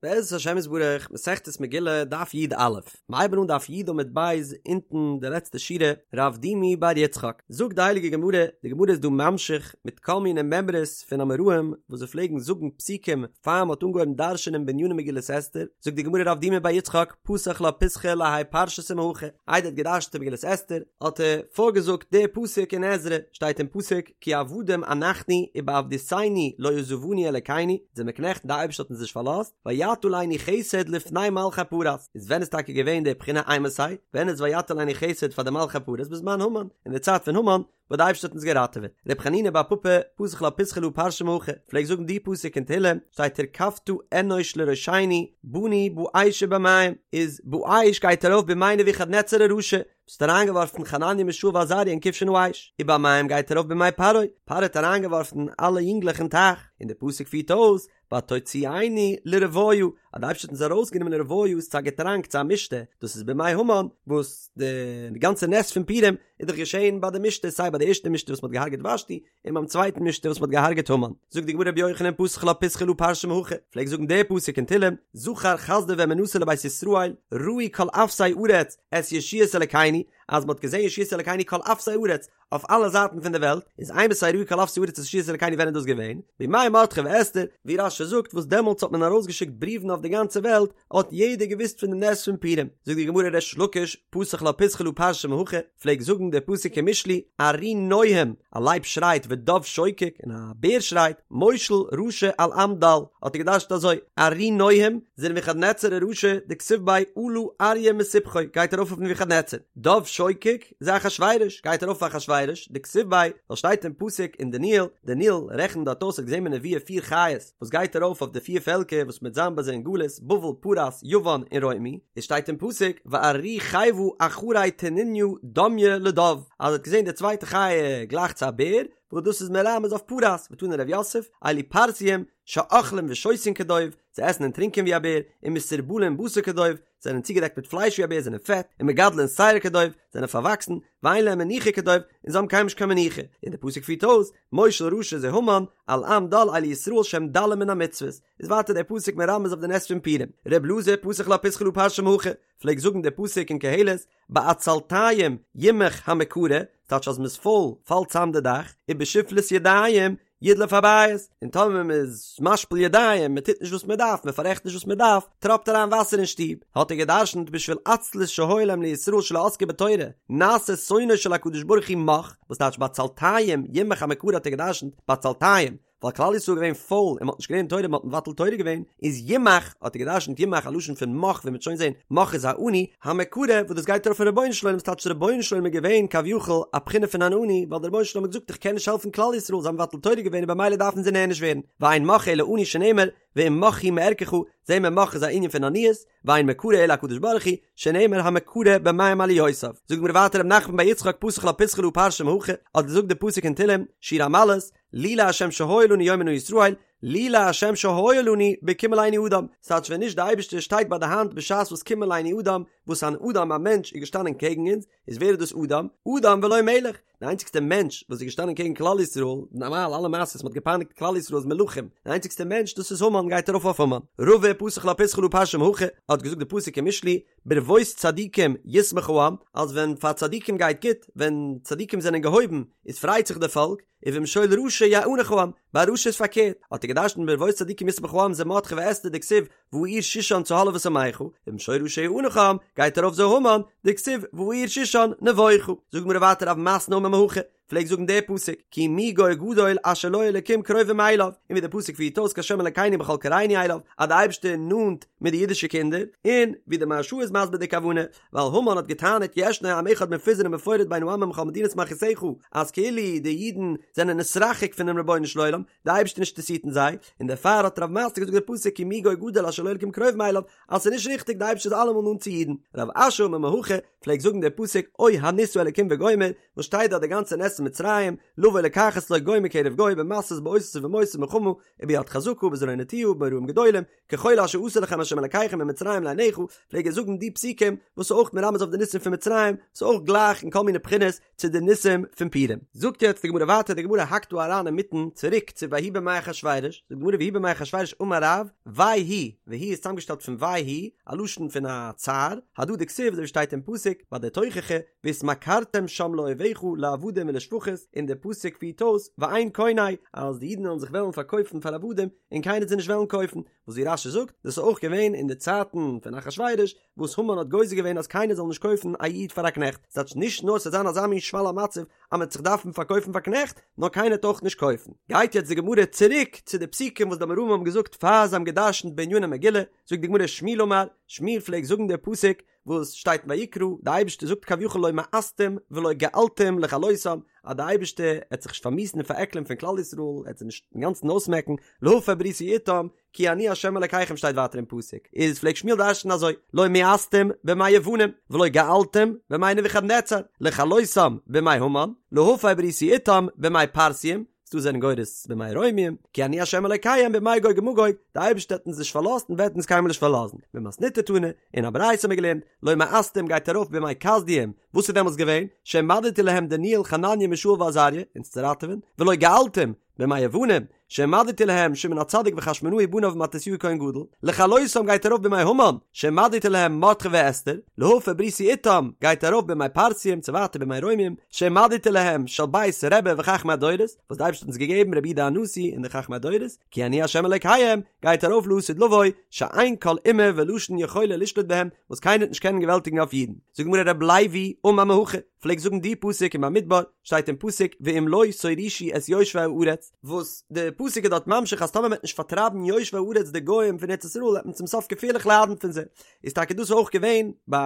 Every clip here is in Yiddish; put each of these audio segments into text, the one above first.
בעזרת השם יתברך, מסכת מגילה, דף י"א. מ'הייבן אן דף י עמוד ב', אונטן די לעצטע שורה, רב דימי בר יצחק. זאגט די הייליגע גמרא, די גמרא איז דא ממשיך מיט כל מיני מימרות פון אמוראים וואס זיי פלעגן זאגן פסוקים פאר מ'האט אנגעהויבן דרש'ענען בעניני מגילת אסתר, זאגט די גמרא רב דימי בר יצחק, פתח לה פיתחא להאי פרשתא מהכא, איידער ער האט געדרש'נט אין מגילת אסתר, האט ער פארגעזאגט די פסוק אין עזרא, שטייט אין פסוק, כי עבדים אנחנו ובעבדותנו לא עזבנו אלקינו, זעמיר קנעכט און די אייבערשטער האט אונז נישט פארלאזט, ויטה עלינו חסד לפני מלכי פרס, איז ווען איז טאקע געווען די בחינה אימתי, ווען איז ויטה עלינו חסד פאר די מלכי פרס בזמן המן, אין די צייט פון המן, וואס די אייבערשטער האט אונז געראטעוועט. ר' חנינא בר פפא, פתח לה פיתחא להא פרשה מהכא, פלעגט זאגן די פסוק אין תהילים, שטייט תרכבת אנוש לראשנו, באנו באש ובמים, איז באש גייט ארויף בימי נבוכדנצר הרשע, וואס האט אריינגעווארפן חנניה מישאל ועזריה אין כבשן האש, ובמים גייט ארויף בימי פרעה, פרעה האט אריינגעווארפן אלע יונגלעך אין טייך, און דער פסוק פירט אויס, ותוציאנו לרויה, אז די אייבערשטער האט אונז ארויסגענומען לרויה איז צו א געטראנק צו א משתה, דאס איז בימי המן, וואס די גאנצע נס פון פורים איז דאך געשען ביי די משתה, סיי ביי די ערשטע משתה וואס מען האט געהארגעט ושתי, און ביים צווייטן משתה וואס מען האט געהארגעט המן. זאגט די גמרא רבי יוחנן פתח לה פיתחא להא פרשה מהכא, פלעגט זאגן די פסוק אין תהלים, זכר חסדו ואמונתו לבית ישראל, ראו כל אפסי ארץ את ישועת אלקינו, אז מען האט געזען ישועת אלקינו כל אפסי ארץ, אויף אלע זייטן פון די וועלט, איז אימתי ראו כל אפסי ארץ את ישועת אלקינו ווען איז דאס געווען? בימי מרדכי ואסתר, ווי רש"י זאגט וואס דעמאלטס האט מען ארויסגעשיקט בריוון אויף די גאנצע וועלט, האט יעדער געוואוסט פון די נס פון פורים. זאגט די גמרא ריש לקיש, פתח לה פיתחא להא פרשה מהכא, פלעגט זאגן די פסוק אין משלי, ארי נוהם, א לייב שרייט ודוב שוקק, און א בער שרייט, מושל רשע על עם דל, האט ער געדרש'ט אזוי, ארי נוהם, זה נבוכדנצר הרשע, דכתיב ביה עלה אריה מסבכו, גייט ארויף אויף נבוכדנצר, דוב שוקק, זה אחשורוש, גייט ארויף אויף אחשורוש, דכתיב ביה, ווייל שטייט אין פסוק אין דניאל, דניאל רעכנט דארט אויס האט געזען בנבואה פיר חיות, וואס גייט ארויף אויף די פיר פעלקער וואס מ'וועט זיין ביי זיי אין גלות, בבל, פרס, יוון און רומי, עס שטייט אין פסוק, וארי חיוה אחרי תנינא דמיא לדוב, אז ער האט געזען די צווייטע חיה גלייך צו א בער, וואס דאס איז מרמז אויף פרס, ותני רב יוסף, אלו פרסיים, שאוכלים ושותין כדוב, זיי עסן און טרינקען ווי א בער, ומסורבלין בשר כדוב, זענען צוגעדעקט מיט פלייש ווי א בער, זענען פעט, ומגדלין שער כדוב, זענען פארוואקסן, ואין להם מנוחה כדוב, און זיי האבן קיינמאל נישט קיין מנוחה, און דער פסוק פירט אויס, מושל רשע זה המן, על עם דל אלו ישראל שהם דלים מן המצוות, איז ווייטער דער פסוק מרמז אויף די נס פון פורים, ר' אלעזר פתח לה פיתחא להא פרשה מהכא, פלעגט זאגן דער פסוק אין קהלת, בעצלתיים ימך המקרה, ס'טייטש אז מ'איז פויל פאלט צאם די דאך, ובשפלות ידיים ידלוף הבית, און טאמער מען איז משפיל ידיים, מען טוט נישט וואס מען דארף, מען פאררעכט נישט וואס מען דארף, טראפט אריין וואסער אין שטוב, האט ער גע'דרש'נט בשביל עצלות שהיה להם לישראל שלא עסקו בתורה, נעשה שונאו של הקדוש ברוך הוא מך, וואס טייטש בעצלתיים ימך המקרה האט ער גע'דרש'נט בעצלתיים, ווייל כלל ישראל איז געווען פויל און מען האט נישט געלערנט תורה מען האט מבטל תורה געווען, איז ימך האט ער גע'דרש'נט ימך א לשון פון מך ווי מען וועט שוין זען מך איז א עני, המקרה וואס דאס גייט ארויף אויפן רבונו של עולם ס'טייטש רבונו של עולם איז געווען כביכול א בחינה פון אן עני ווייל דער רבונו של עולם האט געזאגט איך קען נישט העלפן כלל ישראל זיי האבן מבטל תורה געווען און במילא דארפן זיי נענש ווערן, ואין מך אלא עני שנאמר ואם מך הוא מערכך, זעהן מיר מך איז א ענין פון עניות, ואין מקרה אלא הקדוש ברוך הוא, שנאמר המקרה במים עליותיו. זאגט די גמרא ווייטער רב נחמן בר יצחק פתח לה פיתחא להא פרשה מהכא, האט געזאגט די פסוק אין תהלים, שיר המעלות, לולי ה' שהיה לנו יאמר נא ישראל, לולי ה' שהיה לנו בקום עלינו אדם, ס'טייטש ווען נישט די אייבערשטער שטייט ביי די האנט בשעת וואס קום עלינו אדם, וואס אן אדם א מענטש איז געשטאנען קעגן אונז, איז ווער איז דאס אדם? אדם ולא מלך, די איינציגסטע מענטש וואס איז געשטאנען קעגן כלל ישראל, נארמאל אלע מעשות מ'האט געפייניגט כלל ישראל איז מלכים, די איינציגסטע מענטש דאס איז המן גייט ארויף אויף המן. רבא פתח לה פיתחא להא פרשה מהכא, האט געזאגט די פסוק אין משלי, ברבות צדיקים ישמח העם, אז ווען פאר צדיקים גייט גוט, ווען צדיקים זענען געהויבן, איז פרייט זיך די פאלק, ובמשול רשע יאנח העם, ביי א רשע איז פארקערט, האט ער געדרשנט ברבות צדיקים ישמח העם זה מרדכי ואסתר דכתיב והעיר שושן צהלה ושמחה, ובמשול רשע יאנח העם, גייט ארויף זה המן, דכתיב והעיר שושן נבוכה. זאגט די גמרא ווייטער רב מתנה אמר מהכא, פלעגט זאגן די פסוק, כי מי גוי גדול אשר לו אלקים קרובים אליו, און ווי די פסוק פירט אויס כה' אלקינו בכל קראנו אליו, אז די אייבערשטער איז נאנט מיט די אידישע קינדער, און ווי די מהרש"א איז מסביר די כוונה, ווייל המן האט געטענה'ט ישנו עם אחד מפוזר ומפורד בין העמים בכל מדינות מלכותך, אז כאילו די אידן זענען נתרחק פונעם רבונו של עולם, די אייבערשטער נישט אינטערעסירט אין זיי, און דערפאר האט רב מתנה געזאגט די פסוק כי מי גוי גדול אשר לו אלקים קרובים אליו, אז ס'איז נישט ריכטיג די אייבערשטער איז אלעמאל נאנט צו אידן. רב אשי אמר מהכא, פלעגט זאגן די פסוק אוי הנסה אלקים וגומר, וואס שטייט דארט די גאנצע נס. נס מצרים, לבוא לקחת לו גוי מקרב גוי במסות באותות ובמופתים ובמלחמה וביד חזקה ובזרוע נטויה ובמוראים גדולים, ככל אשר עשה לכם ה' אלקיכם במצרים לעיניך, פלעג ער זאגן די פסוקים וואס איז אויך מרמז אויף די ניסים פון מצרים, ס'איז אויך גלייך אין כל מיני בחינות צו די ניסים פון פורים. זאגט יעצט די גמרא ווייטער, די גמרא האקט דא אריין אינמיטן צוריק צו ויהי בימי אחשורוש, זאגט די גמרא ויהי בימי אחשורוש אמר רב, וויי הוא, והוא איז צוזאמגעשטעלט פון וויי הוא, א לשון פון א צער, הדא דכתיב אזוי ווי שטייט אין פסוק ביי די תוכחה, והתמכרתם שם לאויביך לעבדים ולשפחות, און די פסוק פירט אויס, ואין קונה, אז די אידן וועלן זיך וועלן פארקויפן פאר עבדים, און קיינער וועט זיי נישט וועלן קויפן, וואס ווי רש"י זאגט, דאס איז אויך געווען אין די צייטן פון אחשורוש, וואס המן האט גוזר געווען אז קיינער זאל נישט קויפן א איד פאר א קנעכט, ס'טייטש נישט נאר ס'וועט זיין אזא מין שפל המצב אז מ'וועט זיך דארפן פארקויפן פאר קנעכט, נאר קיינער וועט אויך נישט קויפן. גייט יעצט די גמרא צוריק צו די פסוקים וואס די אמוראים האבן געזאגט פאר זיי האבן גע'דרש'נט בעניני מגילה, זאגט די גמרא שמואל אמר, שמואל פלעגט זאגן די פסוק וואס שטייט אין ויקרא, די אייבערשטער זאגט כביכול לא מאסתים ולא געלתים לכלותם, אז די אייבערשטער עט זיך נישט פארמיאוסן און פארעקלען פון כלל ישראל, ער עט זיי נישט אינגאנצן אויסמעקן, להפר בריתי אתם, כי אני ה' אלקיכם שטייט ווייטער אין פסוק, איז פלעגט שמואל דרש'ן אזוי, לא מאסתים בימי יוונים, ולא געלתים בימי נבוכדנצר, לכלותם בימי המן, להפר בריתי אתם בימי פרסיים, ס'דא זענען גורס בימי רומיים, כי אני ה' אלקיהם בימי גוג ומגוג, די אייבערשטער האט אונז נישט פארלאזט און וועט אונז קיינמאל נישט פארלאזן, במתניתא תנא, אין א ברייתא האט מען געלערנט, לא מאסתים גייט ארויף בימי כשדים, וואס איז דעמאלטס געווען, שהעמדתי להם דניאל חנניה מישאל ועזריה, אונז צו ראטעווען, ולא געלתים, בימי יוונים, שהעמדתי להם שמעון הצדיק וחשמונאי בניו ומתתיהו כהן גדול, לכלותם גייט ארויף בימי המן, שהעמדתי להם מרדכי ואסתר, להפר בריתי אתם גייט ארויף בימי פרסיים צו ווייטער בימי רומים, שהעמדתי להם של בית רבי וחכמי הדורות, וואס די אייבערשטער האט אונז געגעבן רבי יהודה הנשיא און די חכמי הדורות, כי אני ה' אלוקיהם, גייט ארויף לעתיד לבוא, שאין כל אומה ולשון יכולה לשלוט בהם, וואס קיינער וועט נישט קענען געוועלטיגן אויף אידן. זאגט די גמרא רב לוי אמר מהכא, פלעגט זאגן די פסוק אין במדבר, שטייט אין פסוק ואם לא תורישו את יושבי הארץ, וואס די פסוק איז דארט ממשיך אז טאמער מען וועט נישט פארטרייבן יושבי הארץ די גוים פון ארץ ישראל וועט מען צום סוף געפערליך ליידן פון זיי, איז טאקע דאס אויך געווען ביי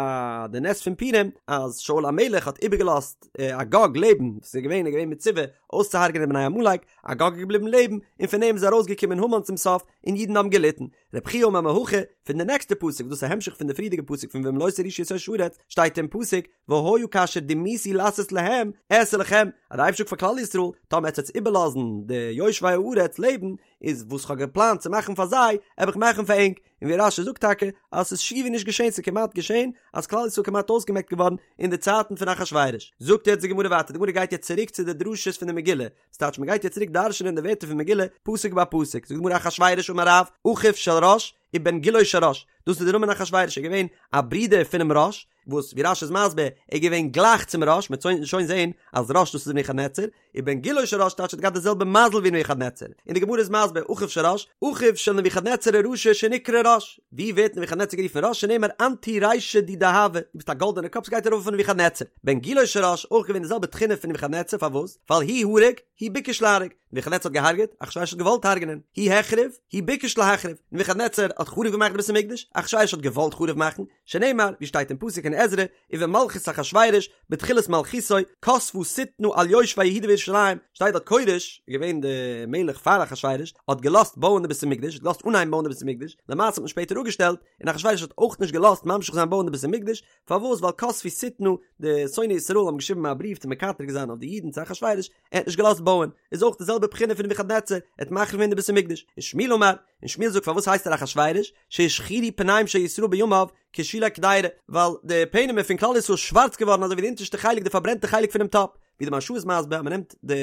די נס פון פורים אז שאול המלך האט איבערגעלאזט אגג לעבן, וואס איז געווען איז געווען מצווה אויסצוהרג'ענען בני עמלק, אגג איז געבליבן לעבן, און פון אים איז ארויסגעקומען המן צום סוף, און אידן האבן געליטן. רב חייא אמר מהכא, פון די נעקסטע פסוק, דאס איז א המשך פון די פריערדיגע פסוק פון ואם לא תורישו את יושבי הארץ, שטייט אין פסוק, והיה כאשר דמיתי לעשות להם, אעשה לכם, אז די אייבערשטער זאגט פאר כלל ישראל, טאמער עטס וועטס איבערלאזן די יושבי הארץ לעבן, איז וואס כ'האב געפלאנט צו מאכן פאר זיי, וועל איך מאכן פאר ענק, און ווי רש"י זאגט טאקע, אז ס'איז שיעור נישט געשען, ס'איז כמעט געשען, אז כלל ישראל איז כמעט אויסגעמעקט געווארן אין די צייטן פון אחשורוש. זאגט יעצט די גמרא ווייטער, די גמרא גייט יעצט צוריק צו די דרשות פון די מגילה, ס'טייטש מ'גייט יעצט צוריק דרש'נען די ווערטער פון מגילה, פסוק ביי פסוק, זאגט די גמרא אחשורוש אמר רב, אחיו של ראש, ובן גילו של ראש, דאס איז די נאמען אחשורוש, ער איז געווען א ברודער פונעם ראש, וואס ווי רש"י איז מסביר, ער איז געווען גלייך צום ראש, מ'וועט שוין זען אז ראש דאס איז נבוכדנצר, ובן גילו של ראש טייטש ער האט געהאט די זעלבע מזל ווי נבוכדנצר, און די גמרא איז מסביר, אחיו של ראש, אחיו של נבוכדנצר הרשע שנקרא ראש, ווי ווערט נבוכדנצר גערופן ראש שנאמר אנת הוא רישא די דהבא, דו ביסט א גאלדענע קאפ ס'גייט ארויף אויף נבוכדנצר, בן גילו של ראש, אויך געווען די זעלבע תכונה פון נבוכדנצר, פארוואס? ווייל הוא הרג, הוא ביקש להרוג, נבוכדנצר האט געהארגעט, אחשורוש האט געוואלט הרג'נען, הוא החריב, הוא ביקש להחריב, נבוכדנצר האט חרוב געמאכט די בית המקדש, אחשורוש האט געוואלט חרוב מאכן, שנאמר, ווי שטייט אין פסוק אין עזרא, ובמלכות אחשורוש, בתחילת מלכותו, כתבה שטנה על יושבי יהודה וירושלים, שטייט דארט כורש, איז געווען די מלך פאר אחשורוש, האט געלאזט בויען די בית המקדש, האט געלאזט אנהייבן בויען די בית המקדש, למעשה האט מען שפעטער אפגעשטעלט, און אחשורוש האט אויך נישט געלאזט ממשיך זיין בויען די בית המקדש, פארוואס? ווייל כתבו שטנה, די שונאי ישראל האבן געשריבן א בריוו צו מקטרג זיין אויף די אידן צו אחשורוש, ער האט נישט געלאזט בויען, איז אויך די זעלבע בחינה פון נבוכדנצר, ער האט מחריב געווען די בית המקדש, ושמואל אמר, און שמואל זאגט פארוואס הייסט ער אחשורוש, שהשחירו פניהם של ישראל בימיו, כשולי קדירה, ווייל די פענעמער פון כלל ישראל איז שווארץ געווארן אזוי ווי די אונטערשטע חלק די פארברענטע חלק פונעם טאפ, ווי די מהרש"א איז מסביר אז מען נעמט די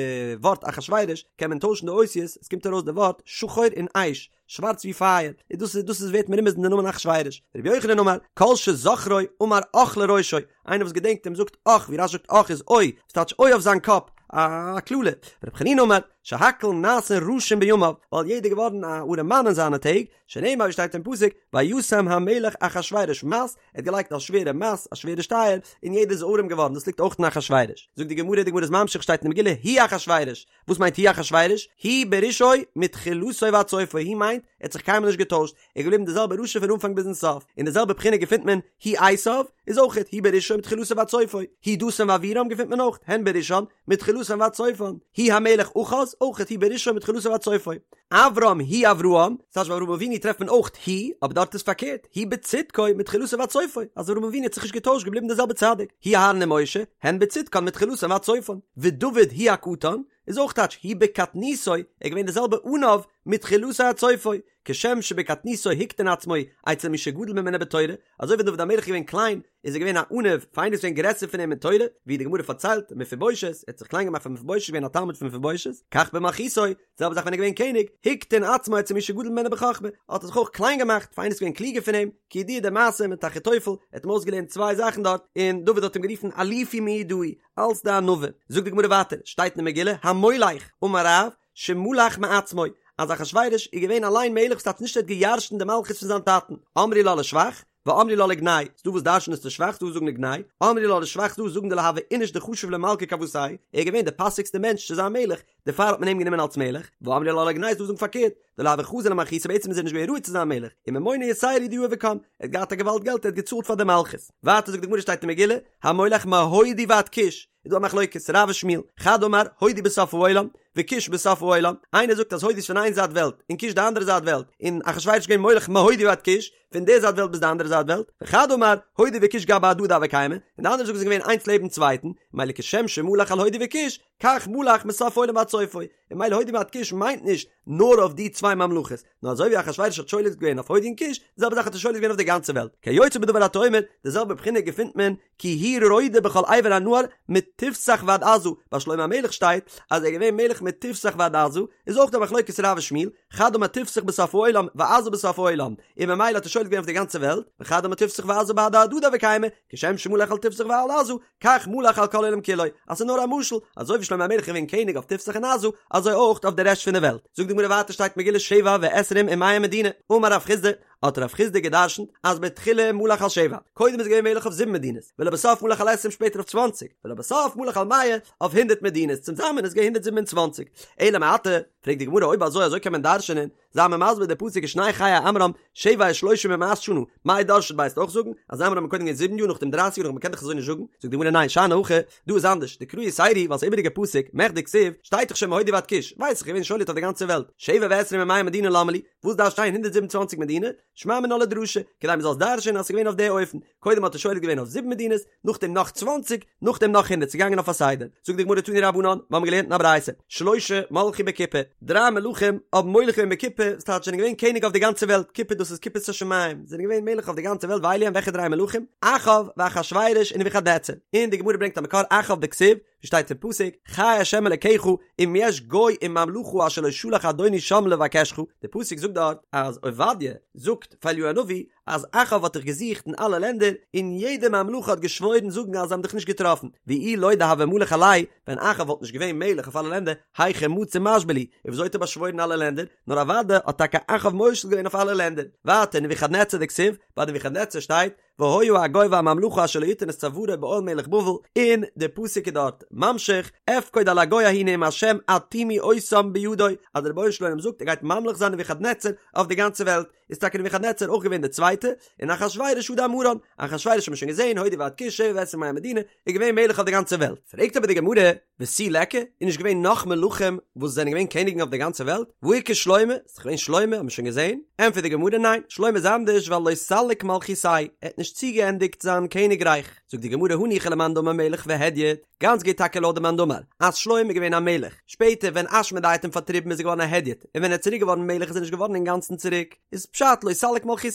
ווארט אחשורוש קען מען טוישן די אותיות, עס קומט ארויס די ווארט שחור און אש, שווארץ ווי פייער, און דאס איז דאס איז ווערט מרומז אין די נאמען אחשורוש. רבי יוחנן אמר, כל שזוכרו אמר אח לראשו, איינער וואס געדענקט אים זאגט אח, ווי רש"י זאגט אח איז אוי, וואס טייטש אוי אויף זיין קאפ, א קללה. רבי חנינא אמר, שהכל נעשין רשים בימיו, ווייל יעדער געווארן א ארעמאן אין זיינע טעג, שנאמר ווי שטייט אין פסוק, וישם המלך אחשורוש מס, ער האט געלייגט א שווערע מס, א שווערע שטייער, און יעדער איז ארעם געווארן, דאס ליגט אויך אין אחשורוש. זאגט די גמרא, די גמרא איז ממשיך, שטייט אין די מגילה, הוא אחשורוש, וואס מיינט הוא אחשורוש? הוא ברשעו מתחילתו ועד סופו, הוא מיינט, ער האט זיך קיינמאל נישט געטוישט, ער איז געבליבן דער זעלבער רשע פון אנפאנג ביזן סוף, און די זעלבע בחינה געפינט מען, הוא עשיו, איז אויכעט, הוא ברשעו מתחילתו ועד סופו, הוא דתן ואבירם געפינט מען אויך, הן ברשען, מתחילתן ועד סופן, הוא המלך אחז. אויכעט הוא ברשעו מתחילתו ועד סופו. אברהם הוא אברהם, ס'טייטש ביי אברהם אבינו טרעפט מען אויך הוא, אבער דארט איז פארקערט, הוא בצדקו מתחילתו ועד סופו, אז אברהם אבינו האט זיך נישט געטוישט געבליבן דער זעלבער צדיק, הוא אהרן ומשה, הן בצדקן מתחילתן ועד סופן, ודוד הוא הקטן, איז אויך טייטש הוא בקטנותו, ער איז געווען דער זעלבער עניו מתחילתו עד סופו, כשם שבקטנותו הקטין עצמו אצל מי שגדול ממנו בתורה, אזוי ווי דוד המלך איז געווען קליין, איז ער געווען א עניו פאר איינער וואס איז געווען גרעסער פון אים אין תורה, ווי די גמרא פארציילט, מפיבושת, ער האט זיך קליין געמאכט פאר מפיבושת געווען א תלמיד פון מפיבושת, כך במלכותו, די זעלבע זאך ווען ער איז געווען קעניג, הקטין עצמו אצל מי שגדול ממנו בחכמה, האט ער זיך אויך קליין געמאכט פאר איינער וואס איז געווען קלוגער פון אים, כידוע די מעשה מיט אחיתופל, ער האט אים אויסגעלערנט צוויי זאכן דארט, און דוד האט אים גערופן אלופי מיודעי, אלס די ענווה. זאגט די גמרא ווייטער, שטייט אין די מגילה, המולך, אמר רב, שמלך מעצמו, אז אחשורוש איז געווען אליין מלך ס'טייטש נישט ער האט געירשנט די מלכות פון זיין טאטן, אמרי לה לשבח, ואמרי לה לגנאי, ס'דא וואס דרש'נען עס לשבח ס'דא וואס זאגן לגנאי, אמרי לה לשבח ס'דא וואס זאגן דלא הוה איניש דחשיב למלכא כוותיה, ער איז געווען די פאסיגסטע מענטש צו זיין מלך, דערפאר האט מען אים גענומען אלס מלך, ואמרי לה לגנאי ס'דא וואס זאגן פארקערט, דלא הוה חזי למלכותא בעצם איז ער נישט געווען ראוי צו זיין מלך, וממונא יתירא הוא דיהיב וקם, ער האט געהאט א געוואלד געלט ער האט געצאלט פאר די מלכות. ווייטער זאגט די גמרא שטייט אין מגילה, המולך מהודו ועד כוש, איז דא א מחלוקת רב ושמואל, חד אמר הודו בסוף העולם, וכוש בסוף העולם, איינער זאגט אז הודו איז פון איין זייט וועלט, און כוש די אנדערע זייט וועלט, און אחשורוש איז געווען מולך מהודו ועד כוש, פון די זייט וועלט ביז די אנדערע זייט וועלט, וחד אמר הודו וכוש גבי הדדי הוו קיימי, און די אנדערע זאגן זיי זענען געווען איינס לעבן צווייטן, מילא כשם שמלך על הודו וכוש, כך מלך מסוף העולם ועד סופו, און מילא הודו ועד כוש מיינט נישט נאר אויף די צוויי ממלכות, נאר אזוי ווי אחשורוש האט שולט געווען אויף הודו און כוש, די זעלבע זאך האט ער שולט געווען אויף די גאנצע וועלט, כיוצא בדבר אתה אומר, די זעלבע בחינה געפינט מען כי הוא רודה בכל עבר הנהר מתפסח ועד עזה, ביי שלמה המלך שטייט אז ער איז געווען מלך מתפסח ועד עזה, איז אויך דא מחלוקת רב ושמואל, חד אמר תפסח בסוף העולם ועזה בסוף העולם, און ממילא האט ער שולט געווען אויף די גאנצע וועלט, וחד אמר תפסח ועזה בהדי הדדי הוו קיימי, כשם שמלך על תפסח ועל עזה, כך מלך על כל העולם כולו, אז ס'איז נאר א משל, אזוי ווי שלמה המלך איז געווען קעניג אויף תפסח און עזה, אזוי אויך אויף די רעשט פון די וועלט. זאגט די גמרא ווייטער שטייט מגילה שבע ועשרים ומאה מדינה, אמר רב חסדא, האט רב חסדא גע'דרשנ'ט אז בתחילה מלך על שבע, קודם איז געווען מלך אויף זיבן מדינות, ולבסוף מלך על עשרים שפעטער אויף צוואנציג, ולבסוף מלך על מאה אויף הונדערט מדינות, צוזאמען איז געווען הונדערט זיבן און צוואנציג. אלא מעתה, פרעגט די גמרא אויב אזוי אזוי קען מען דרש'נען, זיי מיר מסביר די פסוק ושני חיי עמרם שבע ושלושים ומאת שנה, מאי דרשת ביה וועסט אויך זאגן אז עמרם איז קודם געווען זיבן יאר נאכדעם דרייסיג יאר נאך מ'קען דאך אזוי נישט זאגן, זאגט די גמרא ניין שאני הכא, דא איז אנדערש, דקרא יתירא ווייל ס'איז איבעריגע פסוק, מכדי כתיב, שטייט דאך שוין מהודו ועד כוש, ווייס איך געווען שולט אויף די גאנצע וועלט, שבע ועשרים ומאה מדינה למה לי, וואס דארף שטיין 127 מדינה? שמע מינה לדרשה, כדי מ'זאל עס דרש'ענען אז ס'איז געווען אויף די אופן, קודם האט ער שולט געווען אויף זיבן מדינות, נאכדעם נאך צוואנציג, נאכדעם נאך הונדערט, ס'איז געגאנגען אויף א סדר. זאגט די גמרא תנו רבנן, מיר האבן געלערנט אין א ברייתא, שלשה מלכו בכיפה, דריי מלכים האבן מולך געווען בכיפה, ס'טייטש זענען געווען קעניג אויף די גאנצע וועלט, כיפה דאס איז כיפת השמים, זענען געווען מלך אויף די גאנצע וועלט ואלו הן וועלכע דריי מלכים? אחאב ואחשורוש און נבוכדנצר. און די גמרא ברענגט א מקור אחאב דכתיב, ווי שטייט אין פסוק, חי השם אלקיך אם יש גוי וממלכה אשר לא שלח אדוני שם לבקשך, די פסוק זאגט דארט אז עובדיה זאגט פאר אליהו הנביא אז אחאב האט דיך געזוכט אין אלע לענדער און יעדע ממלכה האט געשוואוירן זאגן אז זיי האבן דיך נישט געטראפן, ואי לא דהוה מליך עלייהו, ווען אחאב וואלט נישט געווען מלך אויף אלע לענדער, היכי מצי משבע להו, און וויאזוי האט ער באשוואוירן אלע לענדער, נאר אוודאי האט טאקע אחאב מושל געווען אויף אלע לענדער. ווייטער נבוכדנצר דכתיב, ביי נבוכדנצר שטייט, והיה הגוי והממלכה אשר לא יתן את צווארו בעול מלך בבל, און דער פסוק איז דארט ממשיך, אפקוד על הגוי ההוא נאם השם עד תימי אותם בידו, אז דער רבונו של עולם זאגט ער גייט ממליך זיין נבוכדנצר אויף די גאנצע וועלט, איז טאקע נבוכדנצר אויך געווען דער צווייטער, און אחשורוש הא דאמרן, אחשורוש האט מען שוין געזען, הודו ועד כוש שבע ועשרים ומאה מדינה, איז געווען מלך אויף די גאנצע וועלט. פרעגט אבער די גמרא, ותו ליכא, איז נישט געווען נאך מלכים וואס זענען געווען קעניגן אויף די גאנצע וועלט? והא איכא שלמה, ס'איז דאך געווען שלמה, האט מען שוין געזען? ענטפערט די גמרא, ניין, שלמה איז אנדערש ווייל לא סליק מלכותיה, ער האט נישט צוגעענדיגט זיין קעניגרייך. זאגט די גמרא הניחא למאן דאמר מלך והדיוט, גאנץ גוט טאקע לויט די מאן דאמר אז שלמה איז געווען א מלך, שפעטער ווען אשמדאי האט אים פארטריבן איז ער געווארן א הדיוט, און ווען ער איז צוריק געווארן מלך איז ער נישט געווארן אינגאנצן צוריק, איז פשט לא סליק מלכותיה,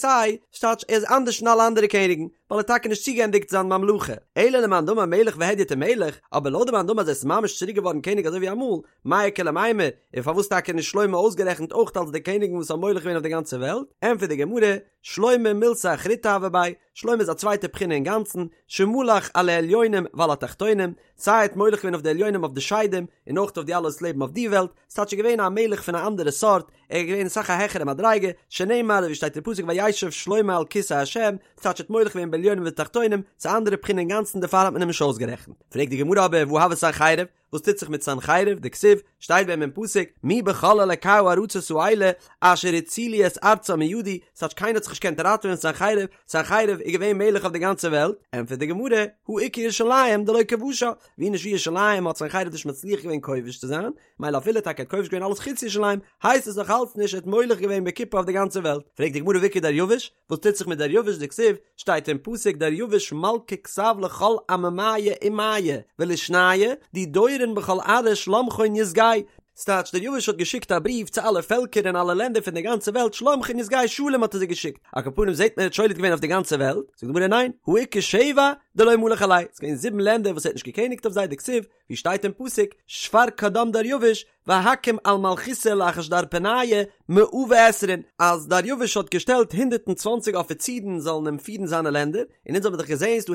ס'טייטש ער איז אנדערש פון אלע אנדערע קעניגן, ווייל ער האט טאקע נישט צוגעענדיגט זיין ממלכה, אלא למאן דאמר מלך והדיוט ומלך, אבער לויט די מאן דאמר אז ער איז ממש צוריק געווארן קעניג אזוי ווי אמאל, מאי איכא למימר, און פארוואס טאקע נישט שלמה אויסגערעכנט אויך אלס די קעניגן וואס האבן מולך געווען אויף די גאנצע וועלט, ענטפערט די גמרא, שלמה מילתא אחריתא הוה ביה, שלמה איז א צווייטע בחינה אינגאנצן, שמלך על העליונים ועל התחתונים, סיי ער האט מולך געווען אויף די עליונים אויף די שדים, און אויך אויף די אלע וואס לעבן אויף די וועלט, ס'טייטש ער איז געווען א מלך פון א אנדערע סארט, ער איז געווען אסאך א העכערע מדריגה, שנאמר ווי שטייט אין פסוק וישב שלמה על כסא ה', ס'טייטש ער האט מולך געווען בעליונים ובתחתונים, ס'איז א אנדערע בחינה אינגאנצן דערפאר האט מען אים נישט אויסגערעכנט. פרעגט די גמרא אבער והא הוה סנחריב? וואס טוט זיך מיט סנחריב, דכתיב, שטייט ביי אים אין פסוק, מי בכל אלקי הארצות האלה אשר הצילו את ארצם מידי, ס'טייטש קיינער האט זיך נישט געקענט ראטעווען פון סנחריב, סנחריב איז געווען מלך אויף די גאנצע וועלט, ענטפערט די גמרא, הא איכא ירושלים דלא כבשה, ווי נישט ווי ירושלים האט סנחריב נישט מצליח געווען כובש צו זיין, מילא אפילו טאקע ער האט כובש געווען אלעס חוץ ירושלים, הייסט עס נאך אלץ נישט ער האט מולך געווען בכיפה אויף די גאנצע וועלט, פרעגט די גמרא והאיכא דריוש, וואס טוט זיך מיט דריוש דכתיב, שטייט אין פסוק דריוש מלכא כתב לכל עממיא אומיא ולישניא די דורון בכל ארעא שלמכון יסגא, ס'טייטש דריוש האט געשיקט א בריוו צו אלע פעלקער און אלע לענדער פון די גאנצע וועלט שלמכון יסגא שלום האט ער זיי געשיקט, על כל פנים זעט מען ער האט שולט געווען אויף די גאנצע וועלט, זאגט די גמרא ניין, הא איכא שבע דלא מלך עלייהו, ס'איז געווען זיבן לענדער וואס ער האט נישט געקעניגט אויף זיי דכתיב, ווי שטייט אין פסוק, שפר קדם דריוש והקים על מלכותא לאחשדרפניא מאה ועשרין, אז דריוש האט געשטעלט 120 אפיצירן זאלן אים פירן זיינע לענדער, און אונז האבן דאך געזען ס'דא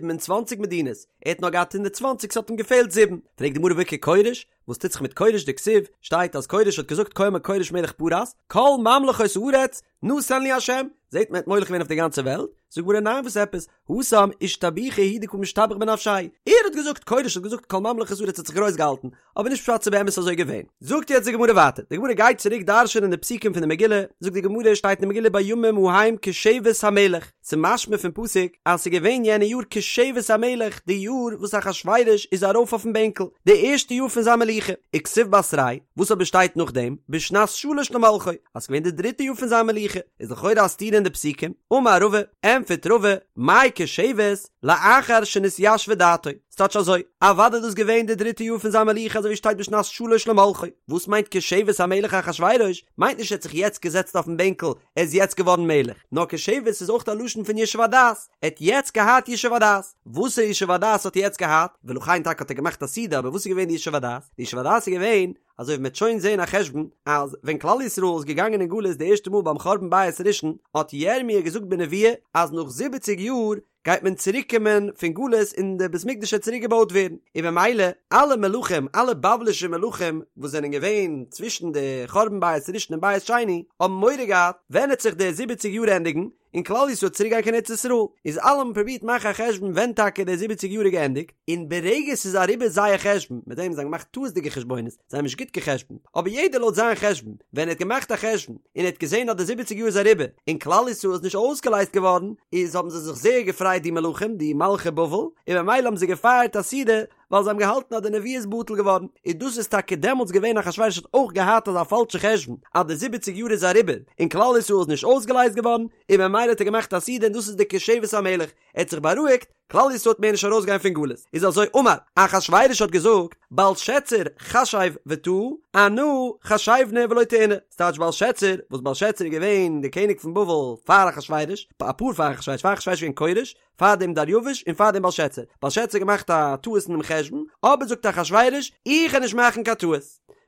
127 מדינות, ער האט נאר געהאט 120 ס'האט אים געפעלט זיבן, פרעגט די גמרא והאיכא כורש, וואס טוט זיך מיט כורש דכתיב, שטייט אז כורש האט געזאגט כה אמר כורש מלך פרס, כל ממלכות הארץ נתן לי השם, זעט מען ער האט מולך געווען אויף די גאנצע וועלט, זאגט די גמרא ניין וואס עפעס, התם אישתבוחי הוא דקא משתבח בנפשיה, ער האט געזאגט, כורש האט געזאגט כל ממלכות הארץ האט זיך גרויס געהאלטן, אבער נישט פשט ס'איז באמת אזוי געווען. זאגט יעצט די גמרא ווייטער, די גמרא גייט צוריק דרש'ענען די פסוקים פון די מגילה, זאגט די גמרא שטייט אין די מגילה בימים ההם כשבת המלך, ס'איז משמע פון פסוק אז ס'איז געווען יענע יאר כשבת המלך, די יאר וואס אחשורוש איז ארויף אויפן בענקל, די ערשטע יאר פון זיין מלוכה, וכתיב בתריה, וואס אבער שטייט נאכדעם, בשנת שלש למלכו, אז ס'איז געווען די דריטע יאר פון זיין מלוכה, איז לכאורה א סתירה אין די פסוקים, אמר רבא, ענטפערט רבא, מאי כשבת, לאחר שנתיישבה דעתו, ס'טייטש אזוי, אוודאי איז דאס געווען די דריטע יאר פון זיין מלוכה אזוי ווי שטייט בשנת שלש למלכו, וואס מיינט כשבת המלך אחשורוש, מיינט נישט ער האט זיך יעצט געזעצט אויפן בענקל, ער איז יעצט געווארן מלך, נאר כשבת איז אויך א לשון פון ישוב הדעת, ער האט יעצט געהאט ישוב הדעת, וואסערע ישוב הדעת האט ער יעצט געהאט, ולכן טאקע האט ער געמאכט א סעודה, אבער וואס איז געווען די ישוב הדעת? די ישוב הדעת איז געווען, אזוי ווי מ'וועט שוין זעהן א חשבון, אז ווען כלל ישראל איז געגאנגען אין גלות די ערשטע מאל ביים חורבן בית ראשון, האט ירמי' געזאגט בנבואה אז נאך זיבעציג יאר גייט מען צוריק קומען פון גלות און די בית מקדש וועט צוריק געבויט ווערן, און במילא אלע מלכים, אלע בבלישע מלכים וואס זענען געווען צווישן די חורבן בית ראשון און בית שני, האבן מורא געהאט ווען וועט זיך די זיבעציג יאר ענדיגן, און כלל ישראל צוריק גיין קיין ארץ ישראל, איז אלע האבן פרובירט מאכן א חשבון ווען טאקע די זיבעציג יאר איז געענדיגט, און ברגע ס'איז אריבער זייער חשבון, מיט דעם זיי האבן געמאכט טעות'דיגע חשבונות, זיי האבן נישט גוט גע'חשבונ'ט, אבער יעדער לויט זיין חשבון, ווען ער האט געמאכט א חשבון, און ער האט געזען אז די זיבעציג יאר איז אריבער, און כלל ישראל איז נישט אויסגעלייזט געווארן, איז האבן זיי זיך זייער געפרייט די מלכים, די מלכי בבל, און במילא האבן זיי געפייערט א סעודה, ווייל זיי האבן געהאלטן אז די נבואה איז בטל געווארן, און דאס איז טאקע דעמאלטס געווען אחשורוש האט אויך געהאט אזא פאלשע חשבון אז די זיבעציג יאר איז אריבער און כלל ישראל איז נישט אויסגעלייזט געווארן, און במילא האט ער געמאכט א סעודה און דאס איז די כשבת המלך, ער האט זיך בארואיגט, כלל ישראל וועט מער נישט ארויסגיין פון גלות, איז אזוי אמר, אחשורוש האט געזאגט, בלשצר חשב וטעה, אנא חשיבנא ולא טעינא, ס'טייטש בלשצר, וואס בלשצר איז געווען די קעניג פון בבל פאר אחשורוש, אפאר פאר אחשורוש, פאר אחשורוש איז געווען כורש, פאר דעם דריווש און פאר דעם בלשצר, בלשצר האט געמאכט א טעות אינעם חשבון, אבער זאגט אחשורוש, איך וועל נישט מאכן קיין טעות.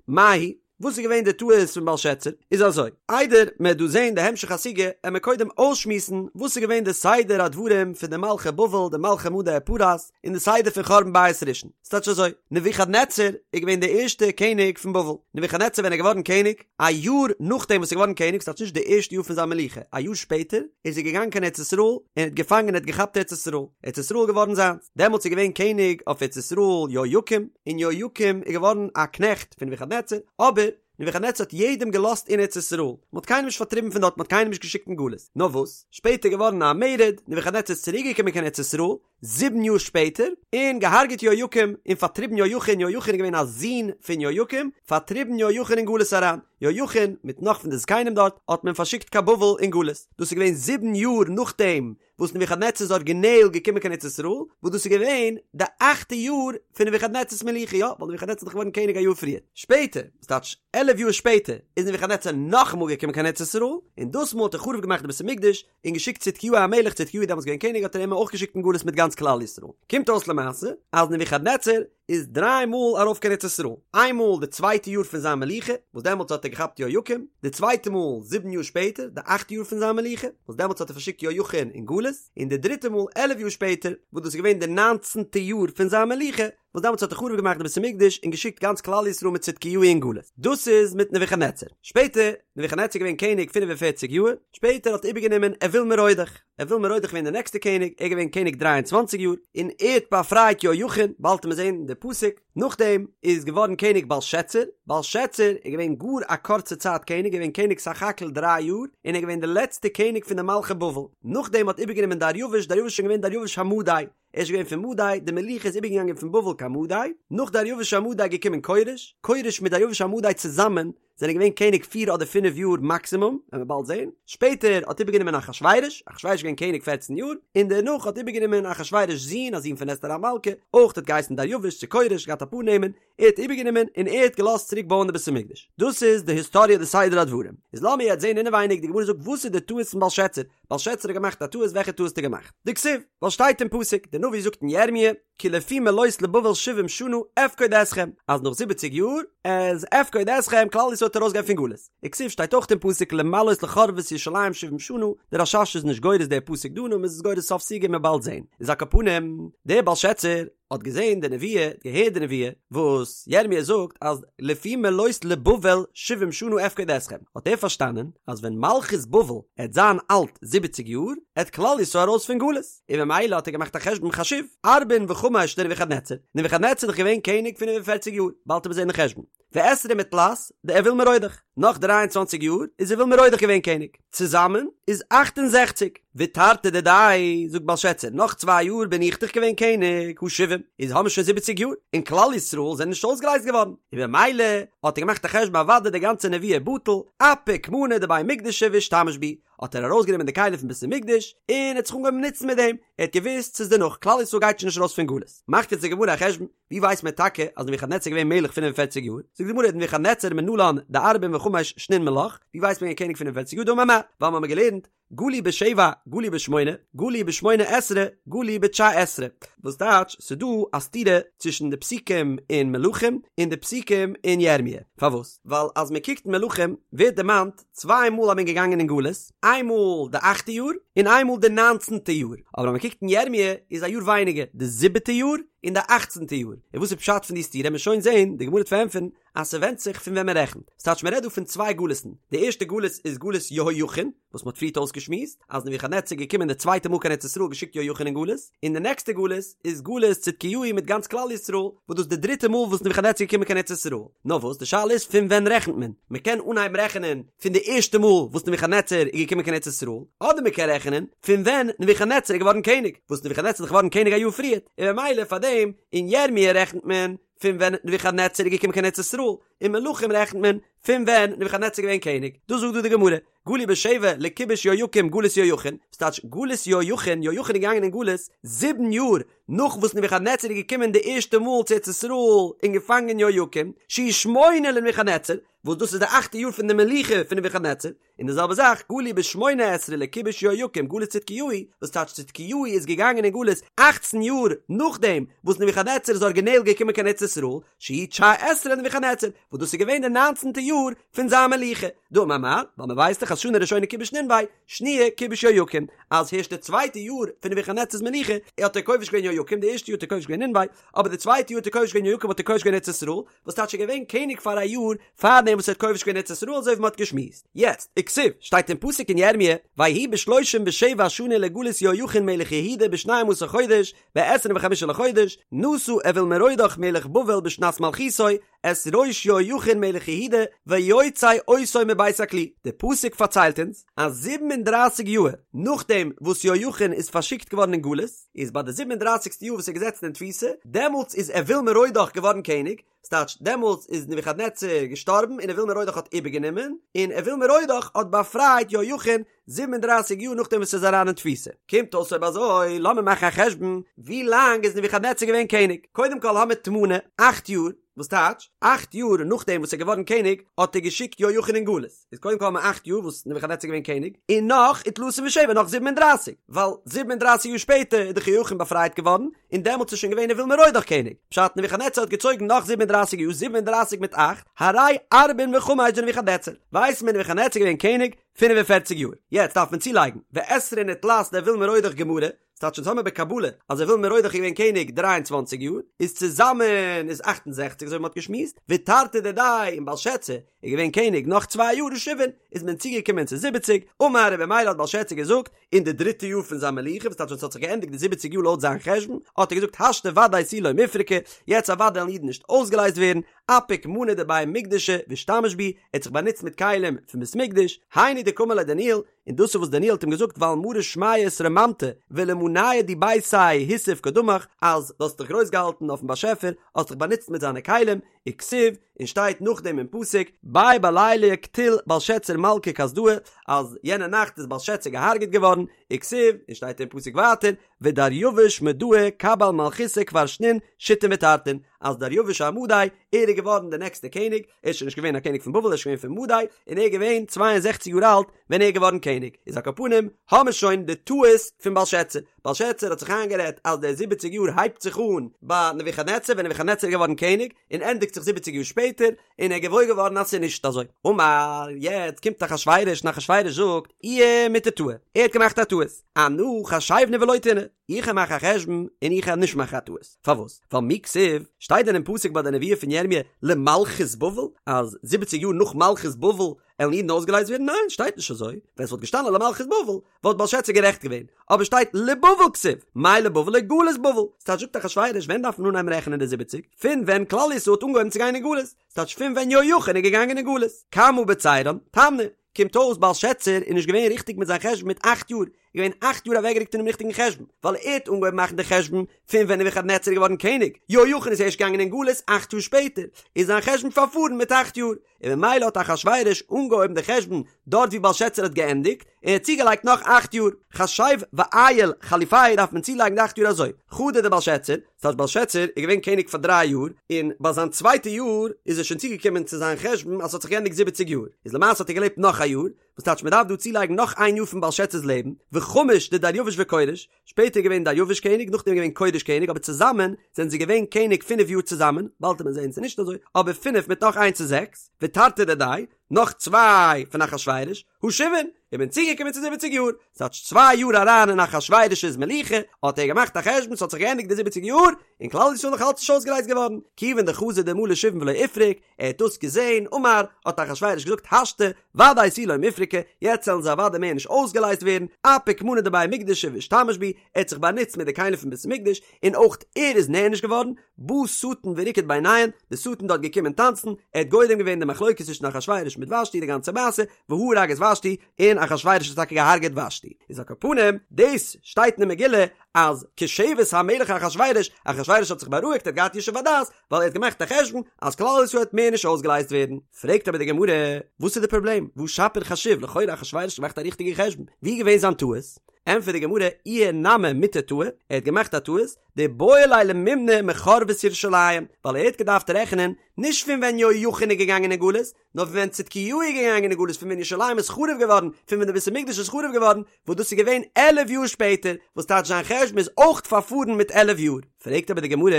מאי היא? וואס איז געווען די טעות פון בלשצר? איז אזוי, איידער מען וועט דא זען די המשך הסוגיא, עמער קודם אויסשמועסן וואס איז געווען די סדר הדברים פון די מלכי בבל, די מלכי מדי ופרס, און די סדר פון חורבן בית ראשון. ס'טייטש אזוי, נבוכדנצר איז געווען די ערשטע קעניג פון בבל. נבוכדנצר ווען ער איז געווארן קעניג, א יאר נאכדעם וואס ער איז געווארן קעניג, ס'טייטש נישט די ערשטע יאר פון זיין מלוכה, א יאר שפעטער, איז ער געגאנגען קיין ארץ ישראל, און האט געפאנגען און האט געכאפט ארץ ישראל. ארץ ישראל איז געווארן זיינס. דעמאלטס איז געווען קעניג אויף ארץ ישראל יהויקים, און יהויקים איז געווארן א קנעכט פון נבוכדנצר, אבער נבוכדנצר האט יעדעם געלאזט אין ארץ ישראל, מען האט קיינעם נישט פארטריבן פון דארט, מען האט קיינעם נישט געשיקט אין גלות. נאר וואס, שפעטער איז געווארן א מרד, נבוכדנצר איז צוריק געקומען קיין ארץ ישראל, זיבן יאר שפעטער, און געהארגעט יהויקים, און פארטריבן יהויכין, יהויכין איז געווען א זון פון יהויקים, פארטריבן יהויכין אין גלות אריין, יהויכין, מיט נאך פון די זקנים דארט, האט מען פארשיקט קיין בבל אין גלות, דאס איז געווען זיבן יאר נאכדעם וואס נבוכדנצר איז ארגינעל געקומען קיין ארץ ישראל, וואס דאס איז געווען די אכטע יאר פון נבוכדנצר'ס מלוכה, יא, ווייל נבוכדנצר איז דאך געווארן קעניג א יאר פריער. שפעטער, וואס טייטש עלף יאר שפעטער, איז נבוכדנצר נאכאמאל געקומען קיין ארץ ישראל, און דאס מאל האט ער חרוב געמאכט די בית המקדש, און געשיקט צדקיהו המלך, צדקיהו איז דעמאלטס געווען קעניג האט ער אים אויך געשיקט אין גלות מיט גאנץ כלל ישראל. קומט אויס למעשה אז נבוכדנצר איז דריי מאל ארויף קיין ארץ ישראל, איין מאל די צווייטע יאר פון זיין מלוכה, וואס דעמאלטס האט ער געכאפט יהויקים, די צווייטע מאל זיבן יאר שפעטער, די אכטע יאר פון זיין מלוכה, וואס דעמאלטס האט ער פארשיקט יהויכין אין גלות, און די דריטע מאל עלף יאר שפעטער, וואס דאס איז געווען די ניינצנטע יאר פון זיין מלוכה, וואס דעמאלטס האט ער חרוב געמאכט די בית המקדש און געשיקט גאנץ כלל ישראל מיט צדקיהו אין גלות. דאס איז מיט נבוכדנצר. שפעטער, נבוכדנצר איז געווען קעניג פינף און פערציג יאר, שפעטער האט איבערגענומען אויל מרודך. אויל מרודך געווען דער נעקסטער קעניג, ער איז געווען קעניג דריי און צוואנציג יאר, און ער האט באפרייט יהויכין, באלד וועט מען זען די. די פסוק, נאכדעם איז געווארן קעניג בלשאצר, בלשאצר איז געווען גאר א קורצע צייט קעניג, געווען קעניג סך הכל דריי יאר, און ער איז געווען די לעצטע קעניג פון די מלכי בבל, נאכדעם האט איבערגענומען דריווש, דריווש איז שוין געווען דריווש המדי, ער איז שוין געווען פון מדי, די מלוכה איז איבערגעגאנגען פון בבל קיין מדי, נאך דריווש המדי איז געקומען כורש, כורש מיט דריווש המדי צוזאמען זענען געווען קעניג פיר אדער פינף יאר מאקסימום, וועלן מיר באלד זען, שפעטער האט איבערגענומען אחשורוש, אחשורוש איז געווען קעניג פערצן יאר, און דערנאך האט איבערגענומען אחשורוש'ס זון, א זון פון אסתר המלכה, אויך האט געהייסן דריווש צו כורש, געהאט אפאר נעמען, ער האט איבערגענומען און ער האט געלאזט צוריק בויען די בית המקדש. דאס איז די היסטאריע די סדר הדברים. איז לאמיר יעצט זען אינעווייניג, די גמרא זאגט וואס איז די טעות פון בלשאצר, בלשאצר האט געמאכט א טעות, וועלכע טעות האט ער געמאכט? דכתיב, ווייל שטייט אין פסוק, די נביא זאגט אין ירמיה, כי לפי מלאות לבבל שבעים שנה אפקוד אתכם, אז נאך זיבעציג יאר איז אפקוד אתכם כלל ישראל וועט ארויסגיין פון גלות. וכתיב שטייט אויך אין פסוק למלאות לחרבות ירושלים שבעים שנה, דער רש"ש איז נישט גורס דער פסוק דא נאר מען איז עס גורס סוף סוגיא מ'עט באלד זעהן. איז על כל פנים, דער בלשאצר האט געזעהן די נבואה, האט געהערט די נבואה, וואס ירמיה זאגט אז לפי מלאות לבבל שבעים שנה אפקוד אתכם, האט ער פארשטאנען אז ווען מלכות בבל עט זיין אלט זיבעציג יאר, עט כלל ישראל ארויס פון גלות. און ממילא האט ער געמאכט א חשבון חשיב, ארבעין וחמש דנבוכדנצר, נבוכדנצר איז דאך געווען קעניג פינף און פערציג יאר, באלד וועט מען זען די חשבון, ועשרים ותלת דאויל מרודך, נאך דריי און צוואנציג יאר איז אויל מרודך געווען קעניג, צוזאמען איז אכט און זעכציג, ותרתי דידי, זאגט בלשאצר, נאך צוויי יאר בין איך דאך געווען קעניג, הא שבעים, איז האבן מיר שוין זיבעציג יאר, און כלל ישראל זענען נישט אויסגעלייזט געווארן, און ממילא האט ער געמאכט א חשבון אוודאי די גאנצע נבואה בטל, אפיק מאני דבי מקדשא ואשתמש בהו, האט ער ארויסגענומען די כלים פון בית המקדש און האט זיך אנגעהויבן נוצן מיט דעם, ער האט געוואוסט ס'איז דערנאך, כלל ישראל גייט שוין נישט ארויס פון גלות. מאכט יעצט די גמרא א חשבון, ווי ווייסט מען טאקע אז נבוכדנצר איז געווען מלך פינף און פערציג יאר? זאגט די גמרא נבוכדנצר מנלן דארבעין וחמש שנין מלך, ווי ווייסט מען געווען קעניג פינף און פערציג יאר? דאמר מר, ווייל מ'האמיר געלערנט, גלו בשבע, גלו בשמונה, גלו בשמונה עשרה, גלו בתשע עשרה. וואס טייטש, ס'איז דא א סתירה צווישן די פסוקים אין מלכים און די פסוקים אין ירמיה. פארוואס? ווייל אז מ'קוקט אין מלכים ווערט דערמאנט צוויי מאל אז מ'איז געגאנגען אין גלות, איין מאל די אכטע יאר און איין מאל די ניינצנטע יאר, אבער אז מ'קוקט אין ירמיה איז א יאר ווייניגער, די זיבעטע יאר און די אכצנטע יאר, און וואס איז פשט פון די סתירה מ'עט שוין זעהן, די גמרא וועט פארענטפערן אז ס'ווענדט זיך פון ווען מ'רעכנט, ס'טייטש מ'רעדט דא פון צוויי גלות'ן, די ערשטע גלות איז גלות יהויכין, וואס מ'האט פריערט אויסגעשמועסט אז נבוכדנצר איז געקומען די צווייטע מאל קיין ארץ ישראל געשיקט יהויכין אין גלות, און די נעקסטע גלות איז גלות צדקיהו מיט גאנץ כלל ישראל, וואס דאס איז די דריטע מאל וואס נבוכדנצר איז געקומען קיין ארץ ישראל. נאר וואס, די שאלה איז פון ווען רעכנט מען? מען קען אנהייבן רעכענען פון די ערשטע מאל וואס נבוכדנצר איז געקומען קיין ארץ ישראל, אדער מען קען רעכענען פון ווען נבוכדנצר איז געווארן קעניג, וואס נבוכדנצר איז דאך געווארן קעניג א יאר פריערט, און ממילא פאר דעם אין ירמיה רעכנט מען פון ווען נבוכדנצר איז געקומען קיין ארץ ישראל, אין מלכים רעכנט מען פון ווען נבוכדנצר איז געווען קעניג. דאס זאגט דא די גמרא. גלו בשבע לכיבוש יהויקים גלות יהויכין, ס'טייטש גלות יהויכין, יהויכין איז געגאנגען אין גלות זיבן יאר נאך וואס נבוכדנצר איז געקומען די ערשטע מאל צו ארץ ישראל און געפאנגען יהויקים, שהוא שמונה לנבוכדנצר, וואס דאס איז די אכטע יאר פון די מלוכה פון נבוכדנצר, און די זעלבע זאך גלו בשמונה עשרה לכיבוש יהויקים גלות צדקיהו, וואס טייטש צדקיהו איז געגאנגען אין גלות אכצן יאר נאכדעם וואס נבוכדנצר איז ארגינעל געקומען קיין ארץ ישראל, שהוא תשע עשרה לנבוכדנצר, וואס דאס איז געווען די ניינצנטע יאר פון זיין מלוכה. דאמר מר, ווייל מען ווייסט דאך אז שנה ראשונה כיבש נינוה, שניה כיבש יהויקים, אז הערשט די צווייטע יאר פון נבוכדנצר'ס מלוכה האט ער כובש געווען יהויקים, די ערשטע יאר האט ער כובש געווען נינוה, אבער די צווייטע יאר האט ער כובש געווען יהויקים האט ער כובש געווען ארץ ישראל, וואס טייטש ער איז געווען קעניג פאר א יאר פארדעם וואס ער האט כובש געווען ארץ ישראל אזוי ווי מען האט געשמועסט. יעצט, וכתיב, שטייט אין פסוק אין ירמיה, ויהי בשלושים ושבע שנה לגלות יהויכין מלך יהודה בשנים עשר חודש, בעשרים וחמשה לחודש, נשא אויל מרודך מלך בבל בשנת מלכותו, את ראש יהויכין מלך יהודה, ויוצא אותו מבית הכלא. די פסוק פארציילט אונז, אז זיבן און דרייסיג יאהר נאכדעם וואס יהויכין איז פארשיקט געווארן אין גלות, איז ביי די זיבן און דרייסיגסטע יאר וואס ער איז געזעצן אין תפיסה, דעמאלטס איז אויל מרודך געווארן קעניג, ס'טייטש, דעמאלטס איז נבוכדנצר געשטארבן און אויל מרודך האט איבערגענומען, און אויל מרודך האט באפרייט יהויכין זיבן און דרייסיג יאר נאכדעם וואס ער איז אריין אין תפיסה. קומט אויס אויב אזוי, לאמיר מאכן א חשבון, ווי לאנג איז נבוכדנצר געווען קעניג? קודם כל האמיר תמני, אכט יאר, וואס טייטש, אכט יאר נאכדעם וואס ער איז געווארן קעניג, האט ער געשיקט יהויכין אין גלות. איז קודם כל האמיר אכט יאר וואס נבוכדנצר איז געווען קעניג, און נאך ותלתין ושבע נאך זיבן און דרייסיג, ווייל זיבן און דרייסיג יאר שפעטער איז דאך יהויכין באפרייט געווארן, און דעמאלטס איז שוין געווען אויל מרודך קעניג, פשט נבוכדנצר האט געצויגן נאך זיבן און דרייסיג יאר זיבן און דרייסיג מיט אכט, הרי ארבעין וחמש דנבוכדנצר, ווייסט מען נבוכדנצר איז געווען קעניג פינף און פערציג יאר, יעצט דארף מען צולייגן, ועשרין ותלת דאויל מרודך גמרא, ס'טייטש אונז האמיר בקבלה אז אויל מרודך איז געווען קעניג דריי און צוואנציג יאר, איז צוזאמען איז אכט און זעכציג אזוי ווי מ'האט געשמועסט, ותרתי דידיה און בלשאצר. איז געווען קעניג נאך צוויי יאר הא שבעין, איז מען צוגעקומען צו זיבעציג, אמר און במילא האט בלשאצר געזאגט, אין די דריטע יאר פון זיין מלוכה, וואס טייטש ווען ס'האט זיך געענדיגט די זיבעציג יאר לויט זיין חשבון, האט ער געזאגט השתא ודאי תו לא מיפרקי, יעצט אוודאי וועלן אידן נישט אויסגעלייזט ווערן, אפיק מאני דבי מקדשא ואשתמש בהו, ער האט זיך באנוצט מיט כלים פון בית מקדש, היינו דקאמר ליה דניאל, און דאס איז וואס דניאל האט אים געזאגט ועל מרא שמיא אתרוממת ולמנייא דביתיה הוסיף קדמך, אז דו האסט דיך גרויס געהאלטן אויפן באשעפער, האסט דיך באנוצט מיט זיינע כלים, וכתיב, און שטייט נאכדעם אין פסוק, ביה בליליא קטיל בלשצר מלכא כסדאי, אז יענע נאכט איז בלשצר געהארגעט געווארן, וכתיב, און שטייט אין פסוק ווייטער, ודריוש מדאה קבל מלכותא כבר שנין שיתין ותרתין, אז דריוש המדי, ער איז געווארן דער נעקסטער קעניג, ער איז שוין נישט געווען א קעניג פון בבל, ער איז שוין געווען פון מדי, און ער איז געווען צוויי און זעכציק יאר אלט ווען ער איז געווארן קעניג, איז על כל פנים האמיר שוין די טעות פון בלשצר, בלשצר האט זיך איינגערעדט אז די זיבעציג יאר הייבט זיך אן ביי נבוכדנצר ווען נבוכדנצר איז געווארן קעניג, און ענדיגט זיך זיבעציג יאר שפעטער, און ער איז געוואויר געווארן אז ס'איז נישט אזוי. אמר, יעצט קומט אחשורוש און אחשורוש זאגט, איהו מיטעא טעי, ער האט געמאכט א טעות, אנא חשיבנא ולא טעינא, איך וועל מאכן א חשבון און איך וועל נישט מאכן א טעות. פארוואס? ווייל מי כתיב, שטייט דען אין פסוק ביי די נבואה פון ירמיה למלכות בבל, אז זיבעציג יאר נאך מלכות בבל עלן אידן אויסגעלייזט ווערן? ניין, שטייט נישט אזוי. ווען ס'וואלט געשטאנען למלכות בבל, וואלט בלשצר גערעכט געווען. אבער שטייט לבבל כתיב, מאי לבבל לגלות בבל. ס'טייטש זאגט אחשורוש ווען דארף מען אנהייבן רעכענען די זיבעציג? פון ווען כלל ישראל האט אנגעהויבן צו גיין אין גלות. ס'טייטש פון ווען יהויכין איז געגאנגען אין גלות. כמה בצירן? תמני. קומט אויס בלשצר איז נישט געווען ריכטיג מיט זיין חשבון מיט אכט יאר, איז געווען אכט יאר אוועקגערוקט פונעם ריכטיגן חשבון, ווייל ער האט אנגעהויבן מאכן די חשבון פון ווען נבוכדנצר איז געווארן קעניג, יהויכין איז ערשט געגאנגען אין גלות אכט יאר שפעטער, איז זיין חשבון פארפארן מיט אכט יאר, און ממילא האט אחשורוש אנגעהויבן די חשבון דארט ווי בלשצר האט געענדיגט, און ער האט צוגעלייגט נאך אכט יאר. חשב ועייל חליפיה דארף מען צולייגן די אכט יאר אזוי, חדא דבלשצר, ס'טייטש בלשצר איז געווען קעניג פאר דריי יאר, און ביי זיין צווייטע יאר איז ער שוין צוגעקומען צו זיין חשבון אז ס'האט זיך געענדיגט זיבעציג יאר, איז למעשה האט ער געלעבט נאך א יאר, וואס טייטש מ'דארף דא צולייגן נאך איין יאר פון בלשצר'ס לעבן, וחמש דדריוש וכורש, שפעטער איז געווען דריוש קעניג, נאכדעם איז געווען כורש קעניג, אבער צוזאמען זענען זיי געווען קעניג פינף יאר צוזאמען, באלד וועט מען זען ס'איז נישט אזוי, אבער פינף מיט נאך איינס איז זעקס, ותרתי דידיה, נאך צוויי פון אחשורוש, הא שבעין, איז מען צוגעקומען צו זיבעציג יאר, ס'טייטש צוויי יאר אריין אין אחשורוש'ס מלוכה, האט ער געמאכט א חשבון ס'האט זיך געענדיגט די זיבעציג יאר, און כלל ישראל נאך אלץ נישט אויסגעלייזט געווארן, כיוון דחזא דמלו שבעין ולא איפרוק, ער האט דאס געזען, אמר, האט אחשורוש געזאגט השתא, ודאי תו לא מיפרקי, יעצט וועלן זיי אוודאי מער נישט אויסגעלייזט ווערן, אפיק מאני דבי מקדשא ואשתמש בהו, ער האט זיך באנוצט מיט די כלים פון בית המקדש, און אויך ער איז נענש געווארן, בא שטן וריקד ביניהן, די שטן דארט געקומען טאנצן, ער האט גורם געווען די מחלוקת צווישן אחשורוש מיט ושתי די גאנצע מעשה, והרג את ושתי, און אחשורוש האט טאקע געהארגעט ושתי. איז על כל פנים, דאס שטייט אין די מגילה אז כשבת המלך אחשורוש, אחשורוש האט זיך בארואיגט ער האט געהאט ישוב הדעת, ווייל ער האט געמאכט א חשבון אז כלל ישראל וועט מער נישט אויסגעלייזט ווערן. פרעגט אבער די גמרא, וואס איז די פראבלעם? והא שפיר חשיב, לכאורה אחשורוש האט געמאכט א ריכטיגע חשבון, ווי איז געווען זיין טעות? ענטפערט די גמרא, איהו נמי מיטעא טעי, ער האט געמאכט א טעות, דאיבעי ליה למימני מחרבת ירושלים, ווייל ער האט געדארפט רעכענען נישט פון ווען יהויכין איז געגאנגען אין גלות, נאר פון ווען צדקיהו איז געגאנגען אין גלות, פון ווען ירושלים איז חרוב געווארן, פון ווען די בית המקדש איז חרוב געווארן, וואס דאס איז געווען עלף יאר שפעטער, וואס טייטש זיין חשבון איז אויך פארפארן מיט עלף יאר. פרעגט אבער די גמרא,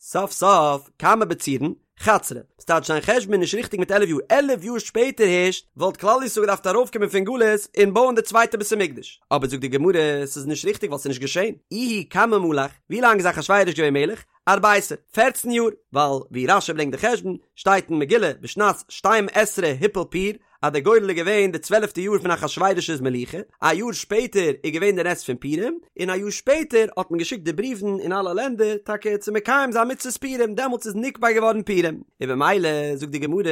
סוף סוף, כמה בצירן? חדסרי, ס'טייטש זיין חשבון איז נישט ריכטיג מיט עלף יאר, עלף יאר שפעטער הערשט וואלט כלל ישראל געדארפט ארויפקומען פון גלות און בויען די צווייטע בית המקדש, אבער זאגט די גמרא ס'איז נישט ריכטיג ווייל ס'איז נישט געשען, איהו כמה מלך, ווי לאנג איז אחשורוש געווען מלך? ארביסר, פערצן יאר, ווייל ווי רש"י ברענגט די חשבון, שטייט אין מגילה בשנת שתים עשרה הפיל פור, אז דער גורל איז געווען די צוועלפטע יאר פון אחשורוש'ס מלוכה, א יאר שפעטער איז געווען די נס פון פורים, און א יאר שפעטער האט מען געשיקט די בריוון אין אלע לענדער טאקע צו מקיים זיין מצוות פורים, דעמאלטס איז נקבע געווארן פורים, און במילא זאגט די גמרא,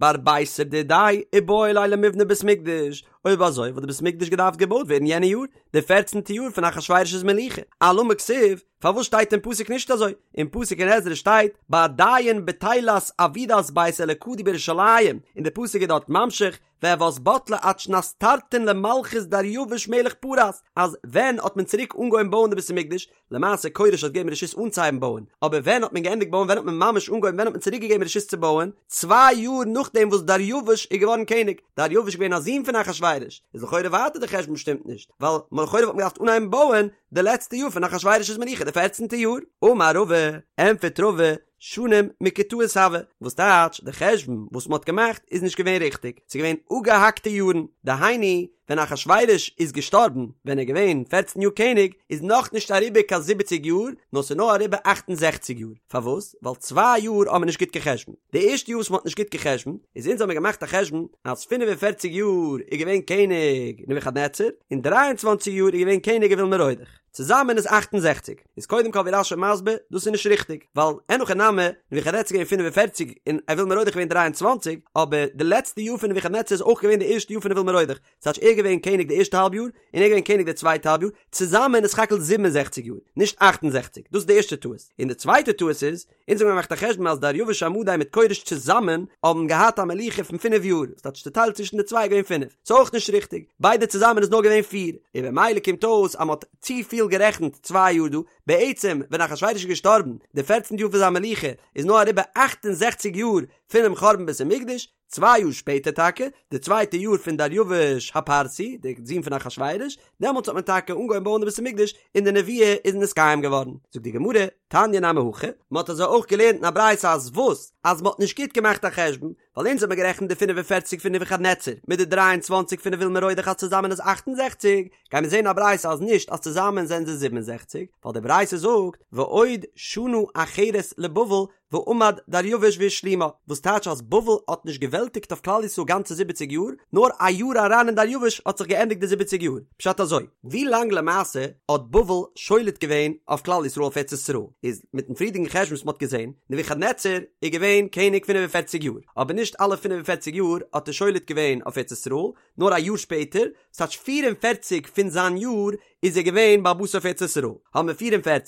בארביסר דידיה איבעי ליה למיבני בית מקדש, אויב אזוי וואלט די בית מקדש געדארפט געבויט ווערן יענע יאר, די פערצנטע יאר פון אחשורוש'ס מלוכה, אלמה כתיב, פארוואס שטייט אין פסוק נישט אזוי? אין פסוק אין עזרא שטייט בעדין בטילת עבודת בית אלקא די בירושלים, און די פסוק איז דארט ממשיך והות בטלה עד שנת תרתין למלכות דריווש מלך פרס, אז ווען האט מען צוריק אנגעהויבן בויען די בית המקדש? למעשה כורש האט געגעבן רשות אנצוהייבן בויען, אבער ווען האט מען געענדיגט בויען ווען האט מען ממש אנגעהויבן ווען האט מען צוריק געגעבן רשות צו בויען? צוויי יאר נאכדעם וואס דריווש איז געווארן קעניג, דריווש איז געווען א זון פון אחשורוש, איז לכאורה ווייטער די חשבון שטימט נישט, ווייל לכאורה וואלט מען געדארפט אנהייבן בויען די לעצטע יאר פון אחשורוש'ס מלוכה, די פערצנטע יאר. אמר רבא, ענטפערט רבא, שנים מקוטעות הוו, וואס טייטש די חשבון וואס מ'האט געמאכט איז נישט געווען ריכטיג, ס'איז געווען אפגעהאקטע יארן, דהיינו ווען אחשורוש איז געשטארבן ווען ער איז געווען פערצן יאר קעניג איז נאכנישט אריבער קיין זיבעציג יאר נאר ס'איז נאר אריבער אכט און זעכציג יאר, פארוואס? ווייל צוויי יאר האט מען נישט גוט גע'חשבונ'ט, די ערשטע יאר וואס מ'האט נישט גוט גע'חשבונ'ט איז אונז האמיר געמאכט א חשבון אז פינף און פערציג יאר איז געווען קעניג נבוכדנצר און דריי און צוואנציג יאר איז געווען קעניג אויל מרודך, צוזאמען איז 68. איז קודם כל ווי רש"י מסביר, דאס איז נישט ריכטיג, ווייל אין הכי נמי, נבוכדנצר איז געווען 45 און אויל מרודך געווען 23, אבער די לעצטע יאר פון נבוכדנצר איז אויך געווען די ערשטע יאר פון אויל מרודך, ס'טייטש ער געווען קעניג די ערשטע האלב יאר, און ער געווען קעניג די צווייטע האלב יאר, צוזאמען איז סך הכל 67 יאר, נישט 68, דאס איז די ערשטע טעות. און די צווייטע טעות איז, אונז האבן געמאכט א חשבון אז דריווש המדי מיט כורש צוזאמען האבן געהאט א מלוכה פון פינף יאר, ס'טייטש צוטיילט צווישן די צוויי איז געווען פינף, ס'איז אויך נישט ריכטיג, ביידע צוזאמען איז נאר געווען פיר, און במילא קומט אויס אז מ'האט צופיל גערעכנט צוויי יאר דא, בעצם ווען אחשורוש איז געשטארבן די פערצנטע יאר פון זיין מלוכה איז נאר אריבער אכט און זעכציג יאר פונעם חורבן בית המקדש, צוויי יאר שפעטער טאקע, די צווייטע יאר פון דריווש הפרסי, דער זון פון אחשורוש, דעמאלטס האט מען טאקע אנגעהויבן בויען די בית המקדש און די נבואה איז נתקיים געווארן. זאגט די גמרא, תניא נמי הכי, מען האט אזוי אויך געלערנט אין א ברייתא אז וואס? אז מען האט נישט גוט געמאכט א חשבון, ווייל אונז האט מען גערעכנט די 45 פון נבוכדנצר מיט די 23 פון אויל מרודך אז צוזאמען איז 68, גייען מיר זעהן אין א ברייתא אז נישט אז צוזאמען זענען זיי 67, ווייל די ברייתא זאגט ועוד שנה אחרת לבבל ועמד דריווש והשלימה, וואס טייטש אז בבל האט נישט געוועלטיגט אויף כלל ישראל גאנצע זיבעציג יאר, נאר א יאר אריין אין דריווש האט זיך געענדיגט די זיבעציג יאר. פשט אזוי, ווי לאנג למעשה האט בבל שולט געווען אויף כלל ישראל אויף ארץ ישראל, איז מיטן פריערדיגן חשבון וואס מ'האט געזען, נבוכדנצר איז געווען קעניג פינף און פערציג יאר, אבער נישט אלע פינף און פערציג יאר האט ער שולט געווען אויף ארץ ישראל, נאר א יאר שפעטער, ס'טייטש פיר און פערציג פון זיין יאר איז ער געווען בעל הבית אויף ארץ ישראל, האבן מיר 44,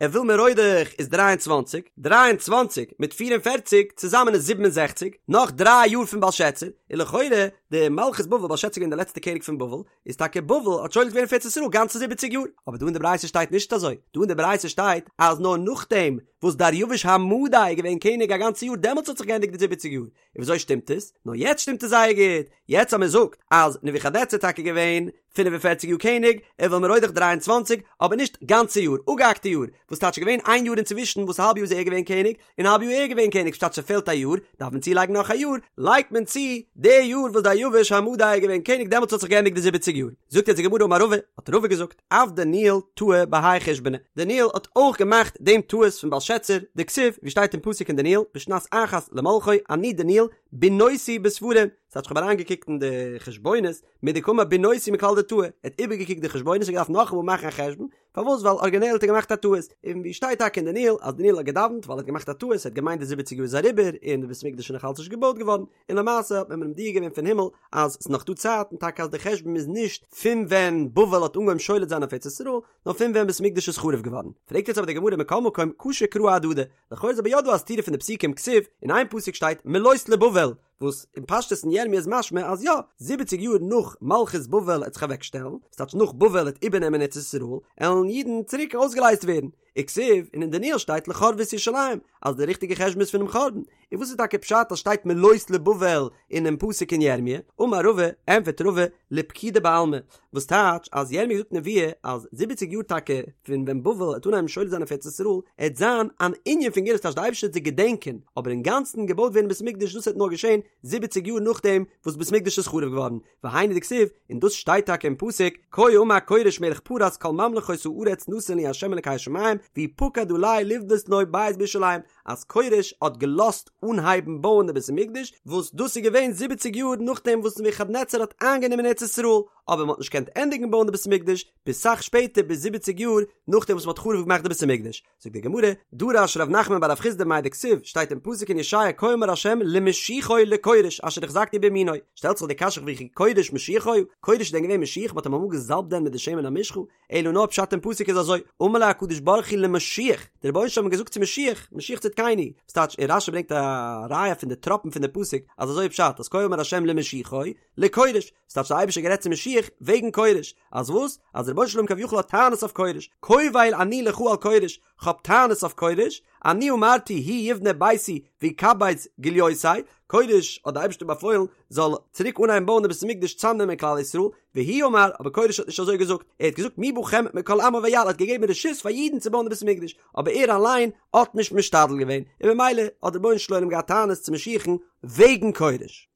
אויל מרודך איז 23, 23 מיט 44 צוזאמען איז 67, נאך דריי יאר פון בלשאצר, און לכאורה די מלכות בבל, בלשאצר איז געווען די לעצטע קעניג פון בבל, איז טאקע בבל האט שולט געווען אויף ארץ ישראל גאנצע זיבעציג יאר, אבער דא אין די ברייתא שטייט נישט אזוי, דא אין די ברייתא שטייט אז נאר נאכדעם וואס דריווש המדי איז געווען קעניג א גאנצע יאר דעמאלטס האט זיך געענדיגט די זיבעציג יאר, און וויאזוי שטימט עס? נאר יעצט שטימט עס זייער גוט, יעצט אז מען זאגט אז נבוכדנצר איז טאקע געווען 45 יאר קעניג, אויל מרודך 23, אבער נישט גאנצע יאר, אפגעהאקטע יאר, וואס טייטש געווען איין יאר אינצווישן וואס האלב יאר איז ער געווען קעניג, און האלב יאר ער געווען קעניג, ס'טייטש ס'פעלט א יאר, דארף מען צולייגן נאך א יאר, לייגט מען צו די יאר וואס דריווש המדי איז געווען קעניג דעמאלטס האט זיך געענדיגט די זיבעציג יאר. זאגט יעצט די גמרא אמר רבא, האט רבא געזאגט, אף דניאל טעה בהאי חושבנא, דניאל האט אויך געמאכט דעם טעות פון בלשאצר, דכתיב, ווי שטייט אין פסוק אין דניאל, בשנת אחת למלכו, אני דניאל, בינותי בספרים, ס'טייטש כ'האב אריינגעקוקט אין די חשבונות, מדקאמר בינותי מכלל דטעה, ער האט איבערגעקוקט די חשבונות און געדארפט נאכאמאל מאכן א חשבון, פארוואס ווייל ארגינעל האט ער געמאכט א טעות, און ווי שטייט טאקע אין דניאל אז דניאל האט געדאווענט ווייל ער האט געמאכט א טעות, ער האט געמיינט די זיבעציג יאר איז אריבער און די בית המקדש איז נאך אלץ נישט געבויט געווארן, און למעשה האט מען אים מודיע געווען פון הימל אז ס'איז נאך דא צייט און טאקע אז די חשבון איז נישט פון ווען בבל האט אנגעהויבן שולט זיין אויף ארץ ישראל, נאר פון ווען בית המקדש איז חרוב געווארן. פרעגט יעצט אבער די גמרא מכל מקום קשו קראי אהדדי, לכאו' איז אבער יא דא א סתירה פון די פסוקים כתיב, אין איין פסוק שטייט מלאות לבבל, וואס אין פשטות אין ירמי' איז משמע אז יא, זיבעציג יאר נאך מלכות בבל עט זיך אוועק שטעלן, ס'טייטש נאך בבל עט איבערנעמען ארץ ישראל, עלן אידן צוריק אויסגעלייזט ווערן. וכתיב, און אין דניאל שטייט לחרבות ירושלים, אז די ריכטיגע חשבון איז פונעם חורבן. און וואס איז טאקע פשט אז שטייט מלאות לבבל אינעם פסוק אין ירמיה? אמר רבא, ענטפערט רבא, לפקידה בעלמא, וואס טייטש אז ירמיה זאגט נבואה אז זיבעציג יאר טאקע פון ווען בבל עט אנהייבן שולט זיין אויף ארץ ישראל, עט זיין אן ענין פון גאולה ס'טייטש די אייבערשטער עט זיי געדענקען, אבער אינגאנצן געבויט ווערן בית מקדש דאס עט נאר געשען זיבעציג יאר נאכדעם וואס בית מקדש איז חרוב געווארן, והיינו דכתיב, און דאס שטייט טאקע אין פסוק, כה אמר כורש מלך פרס כל ממלכות הארץ נתן לי ה' אלקי השמים, והוא פקד עלי לבנות לו בית בירושלים, אז כורש האט געלאזט אנהייבן בויען די בית המקדש, וואס דאס איז געווען זיבעציג יאר נאכדעם וואס נבוכדנצר האט איינגענומען ארץ ישראל, אבער מען האט נישט געקענט ענדיגן בויען די בית המקדש ביז סאך שפעטער ביז זיבעציג יאר נאכדעם וואס מען האט חרוב געמאכט די בית המקדש. זאגט די גמרא, דרש ר' נחמן בר רב חסדא מאי דכתיב, שטייט אין פסוק אין ישעיה כה אמר ה' למשיחי לכורש אשר החזקתי בימינו, שטעלט זיך די קשיא וכי כורש משיח היה, כורש איז דען געווען משיח מ'האט אים אמאל געזאלבט דען מיט די שמן המשחה, אלא נאר פשט אין פסוק איז אזוי, אמר לו הקדוש ברוך הוא למשיח, דער רבונו של עולם האט געזאגט צו משיח, משיח צדקינו, וואס טייטש, און רשי ברענגט א ראיה פון די טראפן פון די פסוק אז אזוי איז פשט אז כה אמר ה' למשיחי, לכורש, וואס טייטש דער אייבערשטער האט גערעדט צו משיח. משיח וועגן כורש, אז וואס? אז דער רבונו של עולם כביכול האט טענות אויף כורש, קובל אני לך על כורש, כ'האב טענות אויף כורש, אני אמרתי הוא יבנה ביתי ויקבץ גליותי, כורש האט די אייבערשטער באפוילן זאל צוריק אנהייבן בויען די בית המקדש צאמנעמען כלל ישראל, והוא אמר, אבער כורש האט נישט אזוי געזאגט, ער האט געזאגט מי בכם מכל עמו ויעל, ער האט געגעבן רשות פאר אידן צו בויען די בית המקדש, אבער ער אליין האט נישט משתדל געווען, און במילא האט דער רבונו של עולם געהאט טענות צו משיח'ן וועגן כורש.